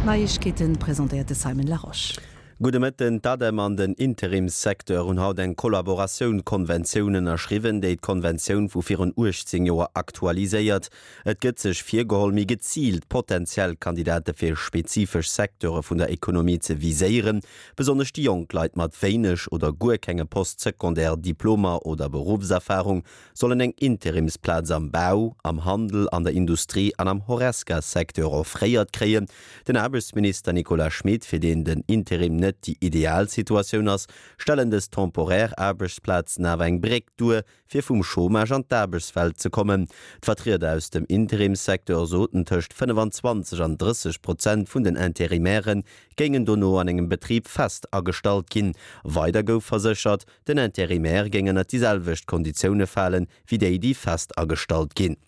D'Neiegkeeten presentéiert de Simon Larosche. Gudde Mëtten. D'ADEM an den Interimssecteur hunn haut eng Kollaboratioun-Konventioun ënnerschriwwen, déi d'Konventioun vu virun 18 Joer aktualiséiert. Et gëtt sech virgeholl, méi geziilt potentiell Kandidate fir spezifesch Secteure vun der Ekonomie ze viséieren. Besonnesch déi jonk Leit mat wéineg oder guer kenge Post-Secondaire Diplomer oder Beruffserfarung sollen eng Interimsplaz am Bau, am Handel, an der Industrie an am Horesca-Secteur offréiert kréien. Den Aarbechtsminister Nicolas Schmit, fir deen den Interim net déi ideal Situatioun ass, stellen dës temporär Aarbechtsplazen awer eng Bréck duer, fir vum Chômage an d'Aarbechtswelt ze kommen. D'Vertrieder aus dem Interimssecteur soten, tëscht 25 an 30 Prozent vun den Interimaire géingen dono an engem Betrib fest agestallt ginn. Weider gouf verséchert, Den Intérimaire géing ënnert déi selwecht Konditioune falen, wéi déi, déi fest agestallt ginn.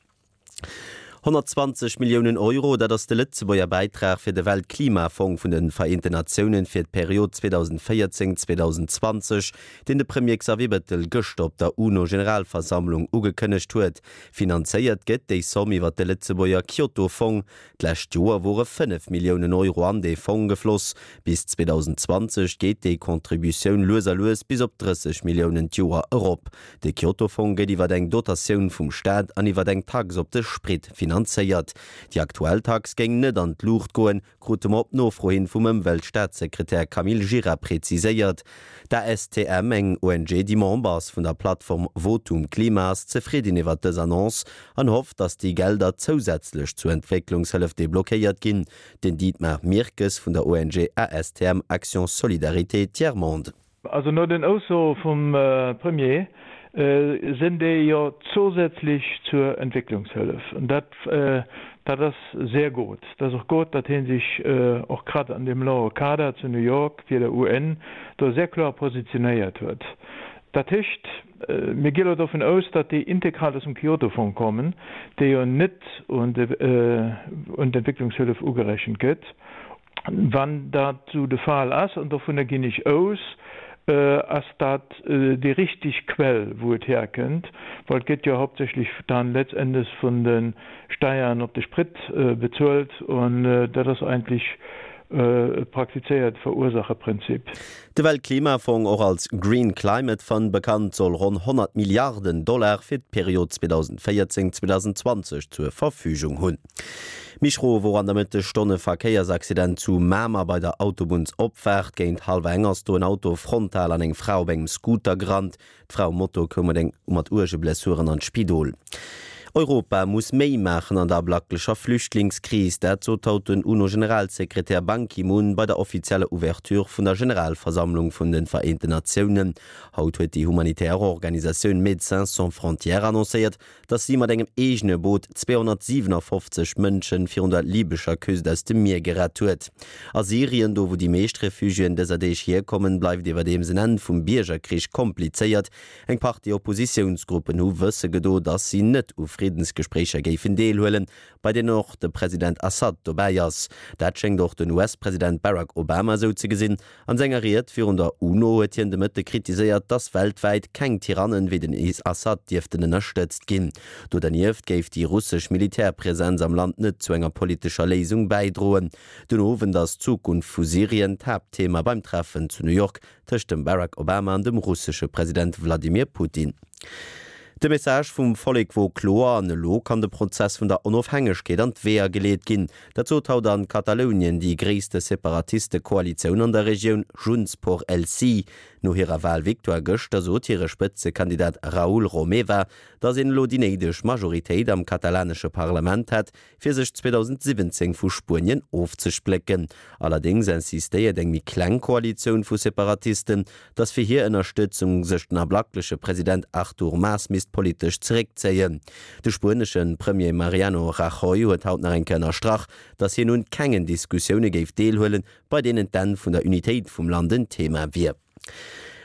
120 Milliounen Euro, dat ass de Lëtzebuerger Bäitrag fir de Weltklimafong vun de Vereenten Natiounen fir d'Period 2014, 2020, deen de Premier Xavier Bettel gëschter op der UNO-Generalversammlung ugekënnegt huet. Finanzéiert gëtt déi Somm iwwer de Lëtzebuerger Kyoto-Fong. D'lescht Joer wore 5 Milliounen Euro an dee Fong gefloss. Bis 2020 geet déi Contributioun lues a lues bis op 30 Milliounen d'Joer erop. De Kyoto-Fong gëtt iwwer eng Dotatioun vum Staat an iwwer eng Tax op de Sprit finanzéiert. Déi aktuell Tax géing net an d'Luucht goen, krute mer op Nofro hin vum Ëmweltstaatssekretär Camille Gira preziséiert. D'ASTM, eng ONG, déi Member ass vun der Plattform Votum Klima, ass zefridden iwwer dës Annonce an hofft, datt déi Gelder zousätzlech zur Entwécklungshëllef deblockéiert ginn. Den Dietmar Mirkes vun der ONG ASTM Action Solidarité Tiers Monde. Also no den Aussoe vum Premier sinn déi jo zousätzlech zur Entwécklungshëllef. An dat, dat ass sehr gut. Et ass och gut, datt hie sech och grad an deem loue Kader zu New York fir der UN do sehr kloer positionéiert huet. Dat heescht, mir gi elo dovun aus, datt déi integral aus dem Kyoto-Fong kommen, dee jo net un d'Entwécklungshëllef ugerechent gëtt. Wann dat esou de Fall ass, an dovunner ginn ech aus, ass dat déi richteg Quell, wou et herkënnt, well et gëtt jo hauptsächlech dann letztendes vun de Steiern op de Sprit bezuelt, an dat ass eigentlech e praktizéiert Verursacherprinzip. De Weltklimafong, och als Green Climate Fund bekannt, soll ronn 100 Milliarden Dollar fir d'Period 2014, 2020 zur Verfügung hunn. Méi schro wor an der Mëttesstonn e Verkéiersaccident zu Mamer bei der Autobunnsopfaart. Géint hallwer eng ass do en Auto frontal an eng Fra op engem Scooter gerannt. D'Fra um Moto koum mat eng mat uerge Blessuren an d'Spidol. Europa muss méi maachen an der ablacklecher Flüchtlingskris. Dat sot haut den UNO-Generalsekretär Ban Ki-moon bei der offizieller Ouverture vun der Generalversammlung vun de Vereenten Natiounen. Haut huet déi humanitär Organisatioun Médecins sans frontières annoncéiert, datt si mat engem eegene Boot 257 Mënsche virun der libescher Küst aus dem Mier gerett huet. A Syrien, do wou déi meescht Refugiéen dëser Deeg hierkommen, bleift iwwerdeems en Enn vum Biergerkrich komplizéiert. Eng Partie Oppositiounsgruppen hu wësse gedo, datt si net u Friddensgespréicher géifen deelhuelen, bei deenen och de President Assad dobäi ass. Dat schéngt och den US-President Barack Obama esou ze gesinn. An senger Ried virun der UNO huet hien de Mëtte kritiséiert, datt weltwäit keng Tyrannen wéi den Assad dierften ënnerstëtzt ginn. Do dernieft géif déi russesch Militärpresenz am Land net zu enger politescher Léisung bäidroen. Den Owend ass d'Zukunft vu Syrien d'Haaptthema beim Treffen zu New York tëscht dem Barack Obama an dem russesche President Wladimir Putin. De Message vum Vollek wor kloer an elo kann de Prozess vun der Onofhängegkeet an d'Weeër geleet ginn. Dat sot haut an Katalounien déi gréisste Separatiste-Koalitioun an der Regioun, Junts por el Sí. No hirer Walvictoire gëschter sot hire Spëtzekandidat Raül Romeva, datt een elo déi néideg Majoritéit am katalanesche Parlament hätt, fir sech 2017 vu Spuenien ofzesplécken. Allerdéngs insistéiert eng méi kleng Koalitioun vu Separatisten, datt fir hir Ënnerstëtzung sech den ablackleche President Artur Mas misst politesch zeréckzéien. De spuenesche Premier Mariano Rajoy huet haut nach eng Kéier ënnerstrach, datt hien un kengen Diskussioune géif deelhuelen, bei deenen d'Enn vun der Unitéit vum Land en Thema wier.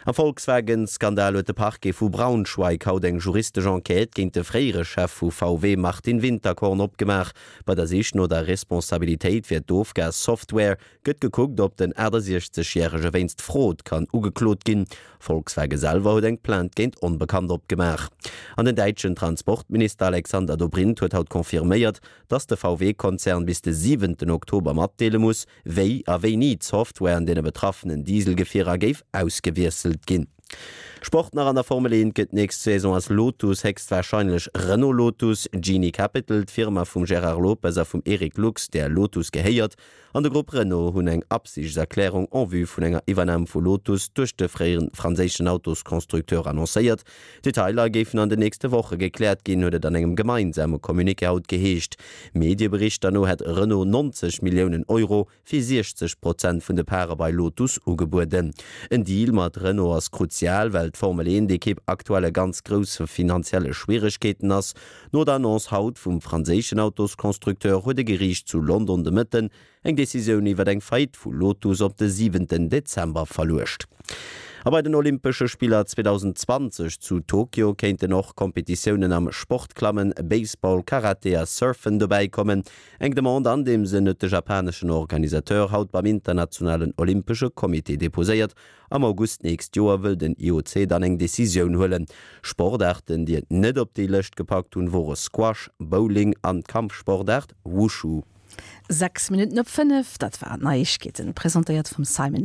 Am Volkswagen-Skandal huet de Parquet vu Braunschweig haut eng juristesch Enquête géint de fréiere Chef vu VW Martin Winterkorn opgemaach. Bei der Sich no der Responsabilitéit fir d'Ofgas-Software gëtt gekuckt, ob den 68 Järege wéinst Frod kann ugeklot ginn. Volkswagen selwer huet eng Plainte géint Onbekannt opgemaach. An den däitschen Transportminister Alexander Dobrindt huet haut confirméiert, datt de VW-Konzern bis de siwenten Oktober matdeele muss, wéi a wéini d'Software an deene betraffenen Dieselgefierer géif ausgewiesselt ginn. Sport nach, An der Formel 1 gëtt d'nächst Saison aus Lotus héchstwarscheinlech Renault Lotus. Genie Capital, d'Firma vum Gérard Lopez a vum Eric Lux, där Lotus gehéiert, an de Grupp Renault hunn eng Absichtserklärung en vue vun enger Iwwernam vu Lotus duerch de fréieren franséischen Autosconstructeur annoncéiert. Detailer géifen an den nächste Woche gekläert ginn, huet et an engem gemeinsame Communiqué haut geheescht. Medieberichter no hätt Renault 90 Milliounen Euro fir 60 Prozent vun de Pare bei Lotus ugebueden. En Deal mat Renault ass kruzial, well d'Formel 1 Ekipp aktuell a ganz grousse finanzielle Schwieregkeeten ass. No der Annonce haut vum franséischen Autosconstructeur huet e Geriicht zu London de Mëtten Eng Decisioun iwwer eng Faillite vu Lotus op de siwenten Dezember verluecht. A bei den Olympesche Spiller 2020 zu Tokio kéinten och Kompetitiounen am Sportklammen, Baseball, Karate a Surfen dobäi kommen. Eng Demande an deem Sënn huet de japaneschen Organisateur haut beim internationalen Olympesche Comité deposéiert. Am August d'nächst Joer wëll den IOC dann eng Decisioun huelen. Sportaarten, déi et net op déi Lëscht gepackt hunn, wore Squash, Bowling an d'Kampfsportaart Wushu. 6 Minutten op 5, dat waren d'Neiegkeeten, presentéiert vum Simon Larosche.